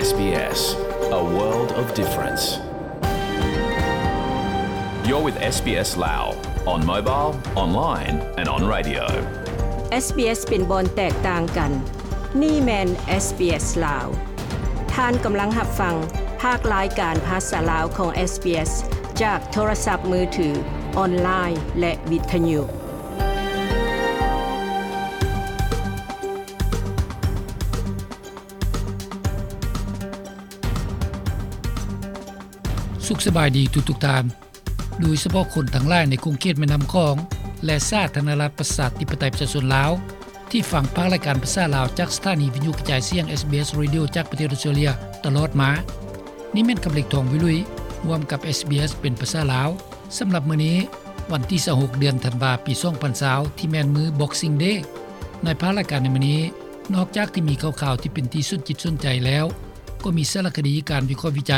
SBS, a world of difference. You're with SBS Lao, on mobile, online and on radio. SBS ເປັນບ່ອນແຕກຕ່າງກັນ. ນີ້ແມ່ນ SBS ລາວ. ທ່ານກຳລັງຮັບຟັງພາກລາຍການພາສາລາວຂອງ SBS ຈາກໂທລະສັບມືຖື, ອອນລາຍ ແລະ ວິທະຍຸ. ສຸກສະບາຍດີທຸກໆທ່ານ, ໂດຍສະເພາະຄົນທັງຫຼາຍໃນຂົງເຂດແມ່ນ້ຳຂອງ ແລະ ສາທາລະນະລັດປະຊາທິປະໄຕປະຊາຊົນລາວ ທີ່ຟັງພາກລາຍການພາສາລາວຈາກສະຖານີວິທະຍຸກະຈາຍສຽງ SBS Radio ຈາກປະເທດອອສເຕຣເລຍຕະຫຼອດມາ. ນີ້ແມ່ນຄຳເລັກ ທອງວິລຸຍ ຮ່ວມກັບ SBS ເປັນພາສາລາວ. ສຳລັບມື້ນີ້ ວັນທີຊາວຫົກ ເດືອນທັນວາ ປີສອງພັນຊາວ ທີ່ແມ່ນມື້ Boxing Day. ໃນພາກລາຍການໃນມື້ນີ້ ນອກຈາກທີ່ມີຂ່າວໆທີ່ເປັນທີ່ສົນຈິດສົນໃຈແລ້ວ, ກໍມີສາລະຄະດີ, ການວິເຄາະວິໄຈ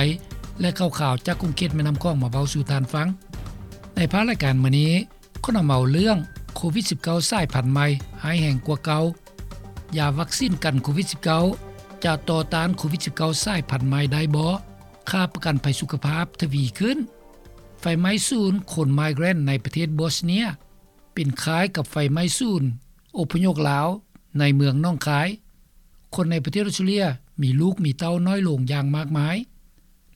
ແລະ ຂ່າວໆຈາກຂົງເຂດແມ່ນ້ຳຂອງມາເວົ້າສູ່ທ່ານຟັງ. ໃນພາກລາຍການມື້ນີ້ ຂໍນຳເອົາເລື່ອງໂຄວິດສິບເກົ້າສາຍພັນໃໝ່ຮ້າຍແຮງກວ່າເກົ່າ, ຢາວັກຊີນກັນໂຄວິດສິບເກົ້າ ຈະຕໍ່ຕ້ານໂຄວິດສິບເກົ້າສາຍພັນໃໝ່ໄດ້ບໍ່, ຄ່າປະກັນໄພສຸຂະພາບທະວີຂຶ້ນ, ໄຟໄໝ້ສູນຄົນໄມເກຣນໃນປະເທດບອສເນຍ ເປັນຄ້າຍກັບໄຟໄໝ້ສູນອົບພະຍົບລາວໃນເມືອງໜອງຄາຍ, ຄົນໃນປະເທດອອສເຕຣເລຍມີລູກມີເຕົ້ານ້ອຍລົງຢ່າງມາກມາຍ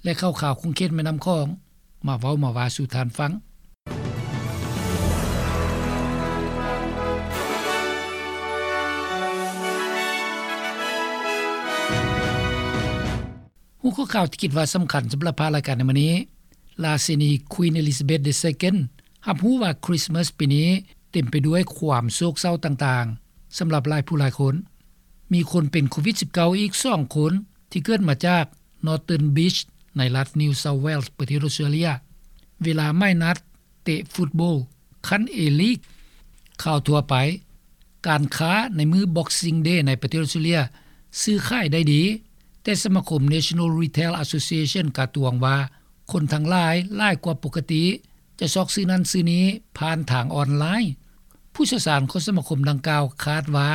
ແລະ ຂ່າວໆຂົງເຂດແມ່ນ້ຳຂອງ ມາເວົ້າມາວ່າສູ່ທ່ານຟັງ. ຫົວຂໍ້ຂ່າວທີ່ຄິດວ່າສຳຄັນສຳລັບພາກລາຍການໃນມື້ນີ້, ລາຊິນີ Queen Elizabeth the Second ຮັບຮູ້ວ່າຄຣິສມາສປີນີ້ເຕັມໄປດ້ວຍຄວາມໂສກເສົ້າຕ່າງໆ ສຳລັບຫຼາຍຜູ້ຫຼາຍຄົນ. ມີຄົນເປັນໂຄວິດສິບເກົ້າອີກສອງຄົນ ທີ່ເກີດມາຈາກ Northern Beach ໃນລັດ New South Wales ປະເທດອອສເຕຣເລຍ ເວລາໝາຍນັດເຕະຟຸດບອລຂັ້ນ A-League. ຂ່າວທົ່ວໄປ. ການຄ້າໃນມື້ Boxing Day ໃນປະເທດອອສເຕຣເລຍຊື້ຂາຍໄດ້ດີ, ແຕ່ສະມາຄົມ National Retail Association ກະຕວງວ່າ ຄົນທັງຫຼາຍຫຼາຍກວ່າປົກກະຕິຈະຊອກຊື້ນັ້ນຊື້ນີ້ຜ່ານທາງອອນລາຍ. ຜູ້ຊ່ຽວຊານຂອງສະມາຄົມດັ່ງກ່າວຄາດວ່າ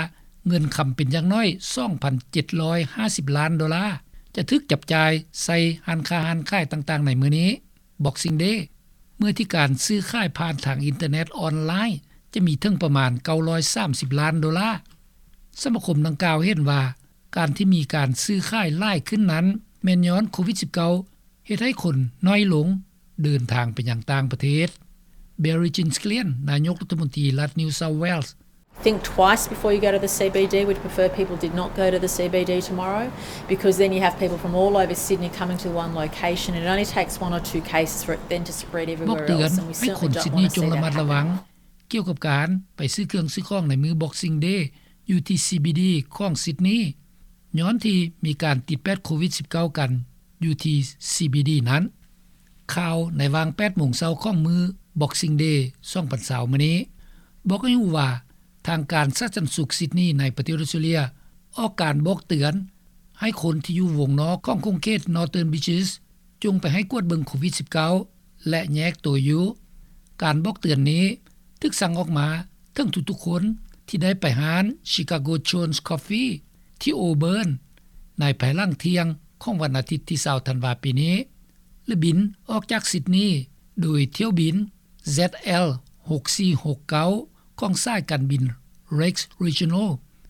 ເງິນຄຳເປັນຢ່າງໜ້ອຍສອງພັນເຈັດຮ້ອຍຫ້າສິບລ້ານໂດລາ ຈະຖືກຈັບຈ່າຍໃສ່ຮ້ານຄ້າຮ້ານຂາຍຕ່າງໆໃນມື້ນີ້ Boxing Day ເມື່ອທີ່ການຊື້ຂາຍຜ່ານທາງອິນເຕີເນັດອອນລາຍ ຈະມີເຖິງປະມານເກົ້າຮ້ອຍສາມສິບລ້ານໂດລາ. ສະມາຄົມດັ່ງກ່າວເຫັນວ່າ ການທີ່ມີການຊື້ຂາຍຫຼາຍຂຶ້ນນັ້ນ ແມ່ນຍ້ອນໂຄວິດສິບເກົ້າເຮັດໃຫ້ຄົນໜ້ອຍລົງເດີນທາງໄປຍັງຕ່າງປະເທດ. Barry Ginsglian ນາຍົກລັດຖະມົນຕີລັດ New South Wales, Think twice before you go to the C B D. We'd prefer people did not go to the C B D tomorrow, because then you have people from all over Sydney coming to one location, and it only takes one or two cases for it then to spread everywhere else, and we certainly don't want to see that happen. ບອກເຕືອນໃຫ້ຄົນຊິດນີຈົ່ງລະມັດລະວັງ ກ່ຽວກັບການໄປຊື້ເຄື່ອງຊື້ຂອງໃນມື້ Boxing Day ຢູ່ທີ່ C B D ຂອງຊິດນີ ຍ້ອນທີ່ມີການຕິດແປດໂຄວິດສິບເກົ້າກັນຢູ່ທີ່ C B D ນັ້ນ. ຂ່າວໃນຫວ່າງແປດໂມງເຊົ້າຂອງມື້ Boxing Day ສອງພັນຊາວມື້ນີ້ ບອກໃຫ້ຮູ້ວ່າ ທາງການສາທາລະນະສຸກຊິດນີໃນປະເທດອອສເຕຣເລຍ ອອກການບອກເຕືອນໃຫ້ຄົນທີ່ຢູ່ວົງນອກຂອງຂົງເຂດ Northern Beaches ຈົ່ງໄປໃຫ້ກວດເບິ່ງໂຄວິດສິບເກົ້າ ແລະ ແຍກໂຕຢູ່. ການບອກເຕືອນນີ້ຖືກສັ່ງອອກມາເຖິງທຸກໆຄົນທີ່ໄດ້ໄປຮ້ານ Chicago Jones Coffee ທີ່ Auburn ໃນພາຍຫຼັງທ່ຽງຂອງວັນອາທິດທີຊາວທັນວາປີນີ້ ແລະ ບິນອອກຈາກຊິດນີໂດຍຖ້ຽວບິນ Z L ຫົກສີ່ຫົກເກົ້າ ຂອງສາຍການບິນ Rex Regional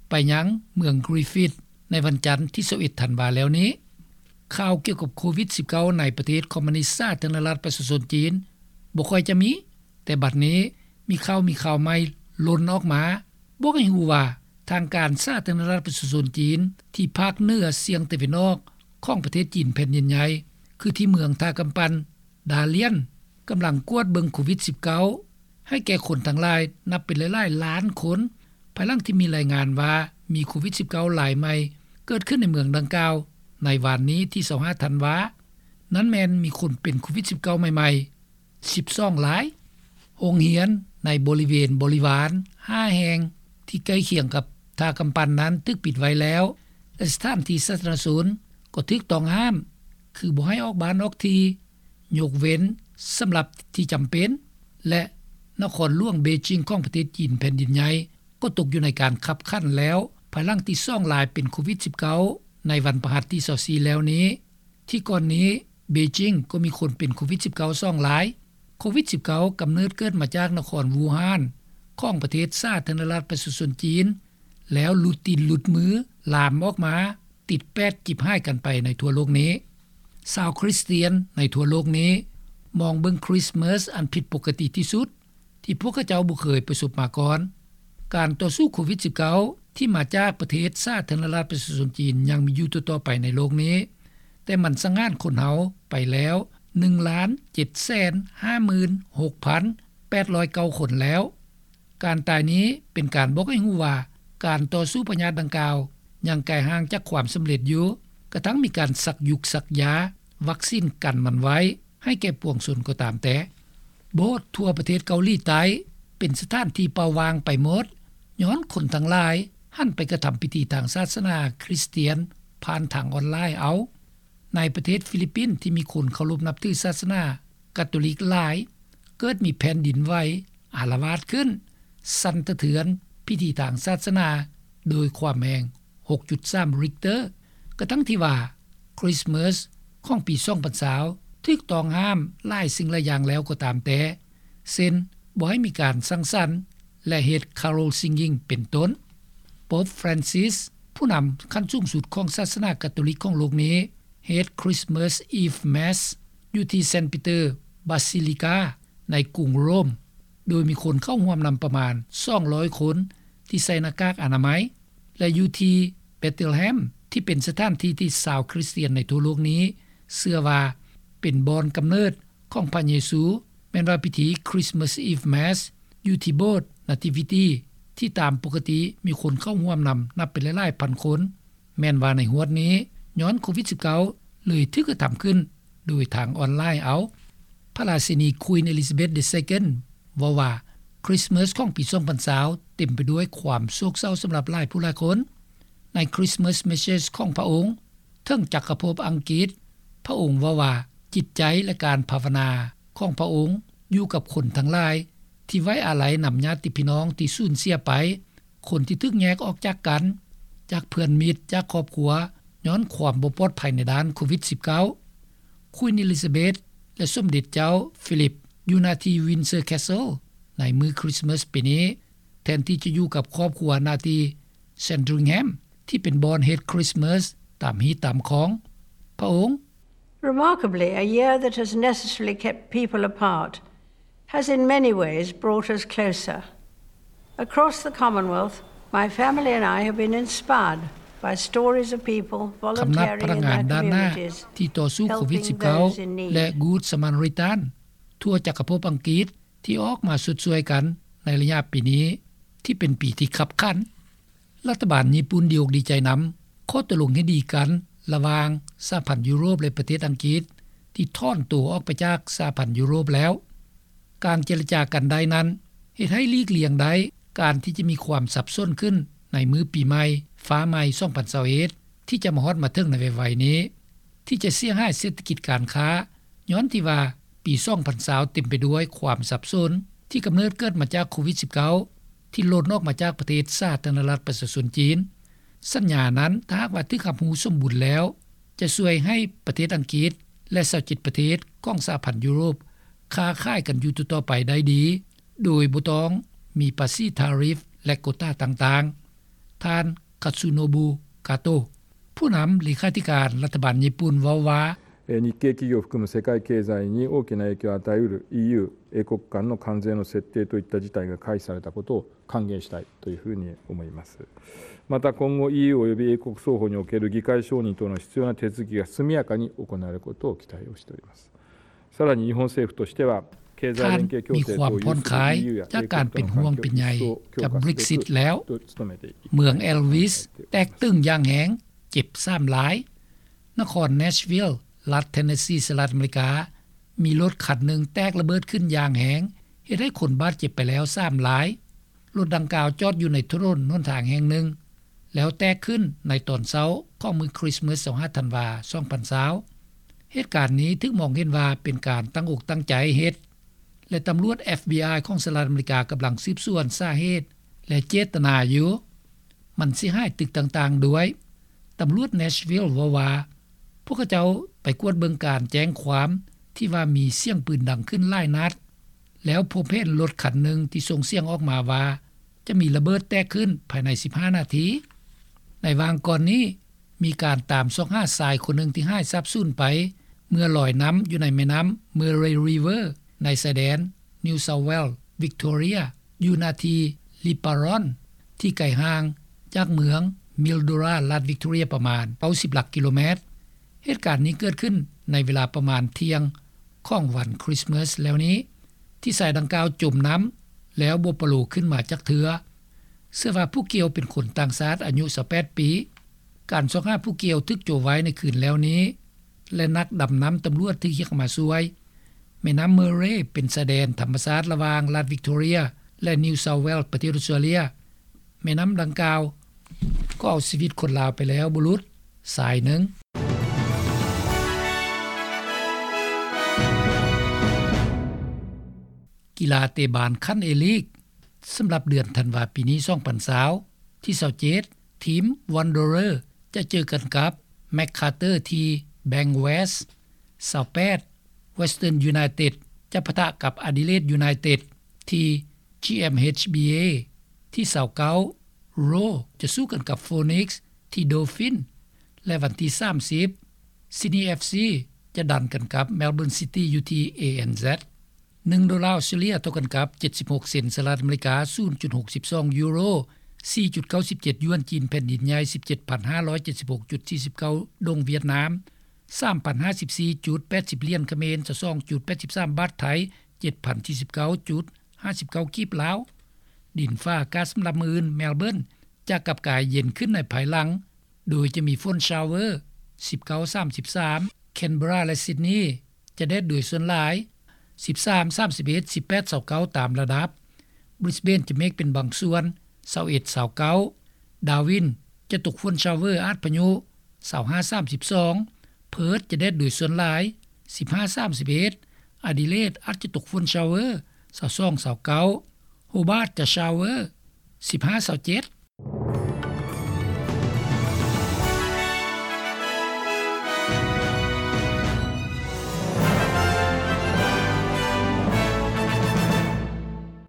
ໄປຍັງເມືອງ Griffith ໃນວັນຈັນທີຊາວເອັດທັນວາແລ້ວນີ້. ຂ່າວກ່ຽວກັບໂຄວິດສິບເກົ້າໃນປະເທດຄອມມູນິດສາທາລະນະລັດປະຊາຊົນຈີນບໍ່ຄ່ອຍຈະມີ, ແຕ່ບັດນີ້ມີຂ່າວ, ມີຂ່າວໃໝ່ຫຼົ່ນອອກມາ ບອກໃຫ້ຮູ້ວ່າ ທາງການສາທາລະນະລັດປະຊາຊົນຈີນທີ່ພາກເໜືອສຽງຕາເວັນອອກຂອງປະເທດຈີນແຜ່ນດິນໃຫຍ່ ຄືທີ່ເມືອງທ່າກຳປັ່ນ ດາລຽນ ກຳລັງກວດເບິ່ງໂຄວິດສິບເກົ້າ ໃຫ້ແກ່ຄົນທັງຫຼາຍນັບເປັນຫຼາຍໆລ້ານຄົນ ພາຍຫຼັງທີ່ມີລາຍງານວ່າມີໂຄວິດສິບເກົ້າລາຍໃໝ່ເກີດຂຶ້ນໃນເມືອງດັ່ງກ່າວໃນວານນີ້ທີຊາວຫ້າທັນວາ. ນັ້ນແມ່ນມີຄົນເປັນໂຄວິດສິບເກົ້າໃໝ່ໆສິບສອງລາຍ. ໂຮງຮຽນໃນບໍລິເວນບໍລິວານຫ້າແຫ່ງທີ່ໃກ້ຄຽງກັບທ່າກຳປັ່ນນັ້ນຖືກປິດໄວ້ແລ້ວ ແລະ ສະຖານທີ່ສາທາລະນະຊົນກໍຖືກຕ້ອງຫ້າມ ຄືບໍ່ໃຫ້ອອກບ້ານອອກທີ່ ຍົກເວັ້ນສຳລັບທີ່ຈຳເປັນ ແລະ ນະຄອນຫຼວງເບຈິງຂອງປະເທດຈີນແຜ່ນດິນໃຫຍ່ກໍຕົກຢູ່ໃນການຄັບຂັນແລ້ວ ພາຍຫຼັງທີ່ສອງລາຍເປັນໂຄວິດສິບເກົ້າ ໃນວັນພະຫັດທີຊາວສີ່ແລ້ວນີ້ ທີ່ກ່ອນນີ້ເບຈິງກໍມີຄົນເປັນໂຄວິດສິບເກົ້າສອງລາຍ. ໂຄວິດສິບເກົ້າກຳເນີດເກີດມາຈາກນະຄອນວູຮານ ຂອງປະເທດສາທາລະນະລັດປະຊາຊົນຈີນ ແລ້ວຫຼຸດຕີນຫຼຸດມື ລາມອອກມາ ຕິດແປດ ຈິບຫາຍກັນໄປໃນທົ່ວໂລກນີ້. ຊາວຄຣິສຕຽນໃນທົ່ວໂລກນີ້ມອງເບິ່ງຄຣິສມາສອັນຜິດປົກກະຕິທີ່ສຸດ ທີ່ພວກເຂົາເຈົ້າບໍ່ເຄີຍປະສົບມາກ່ອນ. ການຕໍ່ສູ້ໂຄວິດສິບເກົ້າ ທີ່ມາຈາກປະເທດສາທາລະນະລັດປະຊາຊົນຈີນຍັງມີຢູ່ຕໍ່ໆໄປໃນໂລກນີ້, ແຕ່ມັນສັງຫານຄົນເຮົາໄປແລ້ວ ໜຶ່ງລ້ານເຈັດແສນຫ້າໝື່ນຫົກພັນແປດຮ້ອຍເກົ້າຄົນແລ້ວ. ການຕາຍນີ້ເປັນການບອກໃຫ້ຮູ້ວ່າ ການຕໍ່ສູ້ພະຍາດດັ່ງກ່າວຍັງໄກຫ່າງຈາກຄວາມສຳເລັດຢູ່, ກະທັ່ງມີການສັກຢຸກສັກຢາ, ວັກຊີນກັນມັນໄວ້ ໃຫ້ແກ່ປວງຊົນກໍຕາມແຕ່. ໂບດທົ່ວປະເທດເກົາຫຼີໃຕ້ເປັນສະຖານທີ່ເປົ່າວ່າງໄປໝົດ ຍ້ອນຄົນທັງຫຼາຍຫັນໄປກະທຳພິທີທາງສາສະໜາຄຣິສຕຽນຜ່ານທາງອອນລາຍເອົາ. ໃນປະເທດຟີລິບປິນທີ່ມີຄົນເຄົາລົບນັບຖືສາສະໜາກາໂຕລິກຫຼາຍ ເກີດມີແຜ່ນດິນໄຫວອາລະວາດຂຶ້ນ ສັ່ນສະເທືອນພິທີທາງສາສະໜາໂດຍຄວາມແຮງຫົກຈຸດສາມ Richter ກະທັ່ງທີ່ວ່າ ຄຣິສມາສຂອງປີສອງພັນຊາວຖືກຕ້ອງຫ້າມຫຼາຍສິ່ງຫຼາຍຢ່າງແລ້ວກໍຕາມແຕ່ ເຊັ່ນ ບໍ່ໃຫ້ມີການສັງສັນ ແລະ ເຮັດ carol singing ເປັນຕົ້ນ. ໂປບ Francis ຜູ້ນຳຂັ້ນສູງສຸດຂອງສາສະໜາກາໂຕລິກຂອງໂລກນີ້ ເຮັດ Christmas Eve Mass ຢູ່ທີ່ Saint Peter Basilica ໃນກຸງໂຣມ ໂດຍມີຄົນເຂົ້າຮ່ວມນຳປະມານສອງຮ້ອຍຄົນ ທີ່ໃສ່ໜ້າກາກອະນາໄມ ແລະ ຢູ່ທີ່ Bethlehem ທີ່ເປັນສະຖານທີ່ທີ່ຊາວຄຣິສຕຽນໃນທົ່ວໂລກນີ້ເຊື່ອວ່າເປັນບ່ອນກຳເນີດຂອງພະເຢຊູ ແມ່ນວ່າພິທີ Christmas Eve Mass ຢູ່ທີ່ໂບດ Nativity ທີ່ຕາມປົກກະຕິມີຄົນເຂົ້າຮ່ວມນຳນັບເປັນຫຼາຍໆພັນຄົນ ແມ່ນວ່າໃນຮວດນີ້ ຍ້ອນໂຄວິດສິບເກົ້າ ເລີຍຖືກກະທຳຂຶ້ນໂດຍທາງອອນລາຍເອົາ. ພະລາຊິນີ Queen Elizabeth the Second ເວົ້າວ່າ ຄຣິສມາສຂອງປີສອງພັນຊາວເຕັມໄປດ້ວຍຄວາມໂສກເສົ້າສຳລັບຫຼາຍຜູ້ຫຼາຍຄົນ. ໃນ Christmas Message ຂອງພະອົງເຖິງຈັກກະພົບອັງກິດ, ພະອົງເວົ້າວ່າ ຈິດໃຈ ແລະ ການພາວະນາຂອງພະອົງຢູ່ກັບຄົນທັງຫຼາຍ ທີ່ໄວ້ອາໄລນຳຍາດຕິພີ່ນ້ອງທີ່ສູນເສຍໄປ, ຄົນທີ່ຖືກແຍກອອກຈາກກັນ, ຈາກເພື່ອນມິດ, ຈາກຄອບຄົວ ຍ້ອນຄວາມບໍ່ປອດໄພໃນດ້ານໂຄວິດສິບເກົ້າ. Queen Elizabeth ແລະ ສົມເດັດເຈົ້າ Philip ຢູ່ໜ້າທີ່ Windsor Castle ໃນມື້ຄຣິສມາສປີນີ້ ແທນທີ່ຈະຢູ່ກັບຄອບຄົວໜ້າທີ່ Sandringham ທີ່ເປັນບ່ອນເຮັດຄຣິສມາສຕາມຮີດຕາມຄອງ. ພະອົງ Remarkably, a year that has necessarily kept people apart has in many ways brought us closer. Across the Commonwealth, my family and I have been inspired by stories of people ຄຳນັບ volunteering ພະນັກ in ງານ their ດ້ານໜ້າ communities, ທີ່ຕໍ່ສູ້ໂຄວິດສິບເກົ້າ helping those in need. ແລະ Good Samaritan ທົ່ວຈັກກະພົບອັງກິດ ທີ່ອອກມາຊົດຊ່ວຍກັນໃນໄລຍະປີນີ້ ທີ່ເປັນປີທີ່ຄັບຂັນ. ລັດຖະບານຍີ່ປຸ່ນດີອົກດີໃຈນຳຂໍ້ຕົກລົງເຫັນດີກັນລະຫວ່າງສະຫະພັນຢູໂຣບ ແລະ ປະເທດອັງກິດ ທີ່ຖອນໂຕອອກໄປຈາກສະຫະພັນຢູໂຣບແລ້ວ. ການເຈລະຈາກັນໄດ້ນັ້ນ ເຮັດໃຫ້ຫຼີກລ່ຽງໄດ້ການທີ່ຈະມີຄວາມສັບສົນຂຶ້ນໃນມື້ປີໃໝ່ຟ້າໃໝ່ສອງພັນຊາວເອັດ ທີ່ຈະມາຮອດມາເຖິງໃນໄວໆນີ້ ທີ່ຈະເສຍຫາຍເສດຖະກິດການຄ້າ ຍ້ອນທີ່ວ່າປີສອງພັນຊາວເຕັມໄປດ້ວຍຄວາມສັບສົນ ທີ່ກຳເນີດເກີດມາຈາກໂຄວິດສິບເກົ້າ ທີ່ຫຼົ່ນອອກມາຈາກປະເທດສາທາລະນະລັດປະຊາຊົນຈີນ. ສັນຍານັ້ນ ຖ້າຫາກວ່າຖືກຮັບຮູ້ສົມບູນແລ້ວ ຈະຊ່ວຍໃຫ້ປະເທດອັງກິດ ແລະ ຊາວເຈັດປະເທດຂອງສະຫະພັນຢູໂຣບຄ້າຂາຍກັນຢູ່ຕໍ່ໆໄປໄດ້ດີ ໂດຍບໍ່ຕ້ອງມີພາສີທາຣິຟ ແລະ ໂກຕາຕ່າງໆ. ທ່ານ Katsunobu Kato ຜູ້ນຳເລຂາທິການລັດຖະບານຍີ່ປຸ່ນເວົ້າວ່າ えー、日系企業を含む世界経済に大きな影響を与えうる イーユー、英国間の関税の設定といった事態が回避されたことを歓迎したいというふうに思います。また今後 イーユー および英国双方における議会承認等の必要な手続きが速やかに行われることを期待をしております。 さらに日本政府としては、経済連携協定等を有する ท่านมีความผ่อนคลาย EU や จากการเป็นห่วงเป็นใยกับ Brexit แล้ว เมือง Elvis แตกตึงอย่างแฮง เจ็บสามราย นคร Nashville รัฐ Tennessee สหรัฐอเมริกา มีรถคันหนึ่งแตกระเบิดขึ้นอย่างแฮง เฮ็ดให้คนบาดเจ็บไปแล้วสามราย รถดังกล่าวจอดอยู่ในถนนหนทางแห่งหนึ่ง แล้วแตกขึ้นในตอนเช้าของมื้อคริสต์มาส ยี่สิบห้าธันวา สองพันยี่สิบ เหตุการณ์นี้ถูกมองเห็นว่าเป็นการตั้งอกตั้งใจเฮ็ด และตำรวจ FBI ของสหรัฐอเมริกากำลังสืบสวนสาเหตุและเจตนาอยู่ มันเสียหายตึกต่างๆ ด้วย ต ຕຳຫຼວດ Nashville ເວົ້າວ່າ ພວກເຂົາເຈົ້າໄປກວດເບິ່ງການແຈ້ງຄວາມ ທີ່ວ່າມີສຽງປືນດັງຂຶ້ນຫຼາຍນັດ ແລ້ວພົບເຫັນລົດຄັນໜຶ່ງທີ່ສົ່ງສຽງອອກມາວ່າ ຈະມີລະເບີດແຕກຂຶ້ນພາຍໃນສິບຫ້ານາທີ. ໃນຫວ່າງກ່ອນນີ້ ມີການຕາມຊອກຫາຊາຍຄົນໜຶ່ງທີ່ຫາຍສາບສູນໄປ ເມື່ອລອຍນ້ຳຢູ່ໃນແມ່ນ້ຳ Murray River ໃນຊາຍແດນ New South Wales Victoria ຢູ່ນາທີ່ Liparone ທີ່ໄກຫ່າງຈາກເມືອງ Mildura ລັດ Victoria ປະມານເກົ້າສິບຫຼັກກິໂລແມັດ. ເຫດການນີ້ເກີດຂຶ້ນໃນເວລາປະມານທ່ຽງຂອງວັນຄຣິສມາສແລ້ວນີ້ ທີ່ຊາຍດັ່ງກ່າວຈົມນ້ຳ ແລ້ວບໍ່ປະໂລຂຶ້ນມາຈັກເທື່ອ. ເຊື່ອວ່າຜູ້ກ່ຽວເປັນຄົນຕ່າງຊາດອາຍຸຊາວແປດປີ. ການຊອກຫາຜູ້ກ່ຽວຖືກໂຈະໄວ້ໃນຄືນແລ້ວນີ້ ແລະ ນັກດຳນ້ຳຕຳຫຼວດຖືກຮຽກມາຊ່ວຍ. ແມ່ນ້ຳ Murray ເປັນຊາຍແດນທຳມະຊາດລະຫວ່າງລັດ Victoria ແລະ New South Wales ປະເທດອອສເຕຣເລັຍ. ແມ່ນ້ຳດັ່ງກ່າວກໍເອົາຊີວິດຄົນລາວໄປແລ້ວບໍ່ຫຼຸດຊາຍໜຶ່ງ. ກິລາເຕະບານຂັ້ນເອລີກ ສຳລັບເດືອນທັນວາປີນີ້ ສອງພັນຊາວ ທີຊາວເຈັດ ທີມ Wanderer ຈະເຈີກັນກັບ MacArthur ທີ່ Bankwest. ຊາວແປດ Western United ຈະປະທະກັບ Adelaide United ທີ່ GMHBA. ທີຊາວເກົ້າ Roar ຈະສູ້ກັນກັບ Phoenix ທີ່ Dauphins ແລະ ວັນທີສາມສິບ Sydney FC ຈະດັນກັນກັບ Melbourne City ຢູ່ທີ່ ANZ. ໜຶ່ງໂດລາອອສເຕຣເລັຍເທົ່າກັນກັບເຈັດສິບຫົກເຊັນສະຫະລັດອາເມລິກາ, ສູນຈຸດຫົກສິບສອງຢູໂຣ, ສີ່ຈຸດເກົ້າສິບເຈັດຢວນຈີນແຜ່ນດິນໃຫຍ່, ສິບເຈັດພັນຫ້າຮ້ອຍເຈັດສິບຫົກຈຸດສີ່ສິບເກົ້າດົງຫວຽດນາມ, ສາມພັນຫ້າສິບສີ່ຈຸດແປດສິບຫຼຽນຂະເໝນ, ຊາວສອງຈຸດແປດສິບສາມບາດໄທ, ເຈັດພັນສີ່ສິບເກົ້າຈຸດຫ້າສິບເກົ້າກີບລາວ. ດິນຟ້າອາກາດສຳລັບມື້ອື່ນ, ແມລເບີນຈະກັບກາຍເຢັນຂຶ້ນໃນພາຍຫຼັງ ໂດຍຈະມີຝົນຊາວເວີ ສິບເກົ້າ ສາມສິບສາມ, ແຄນເບີຣາ ແລະ ຊິດນີ ຈະແດດໂດຍສ່ວນຫຼາຍ ສິບສາມ ສາມສິບເອັດ, ສິບແປດ ຊາວເກົ້າ ຕາມລະດັບ. ບຣິສເບນຈະເມກເປັນບາງສ່ວນ ຊາວເອັດ ຊາວເກົ້າ, ດາວິນຈະຕົກຝົນຊາວເວີອາດພະຍຸ ຊາວຫ້າ ສາມສິບສອງ, ເພີດຈະແດດໂດຍສ່ວນຫຼາຍ ສິບຫ້າ ສາມສິບເອັດ, ອາດີເລດອາດຈະຕົກຝົນຊາວເວີ ຊາວສອງ ຊາວເກົ້າ, ໂຮບາດຈະຊາວເວີ ສິບຫ້າ ຊາວເຈັດ,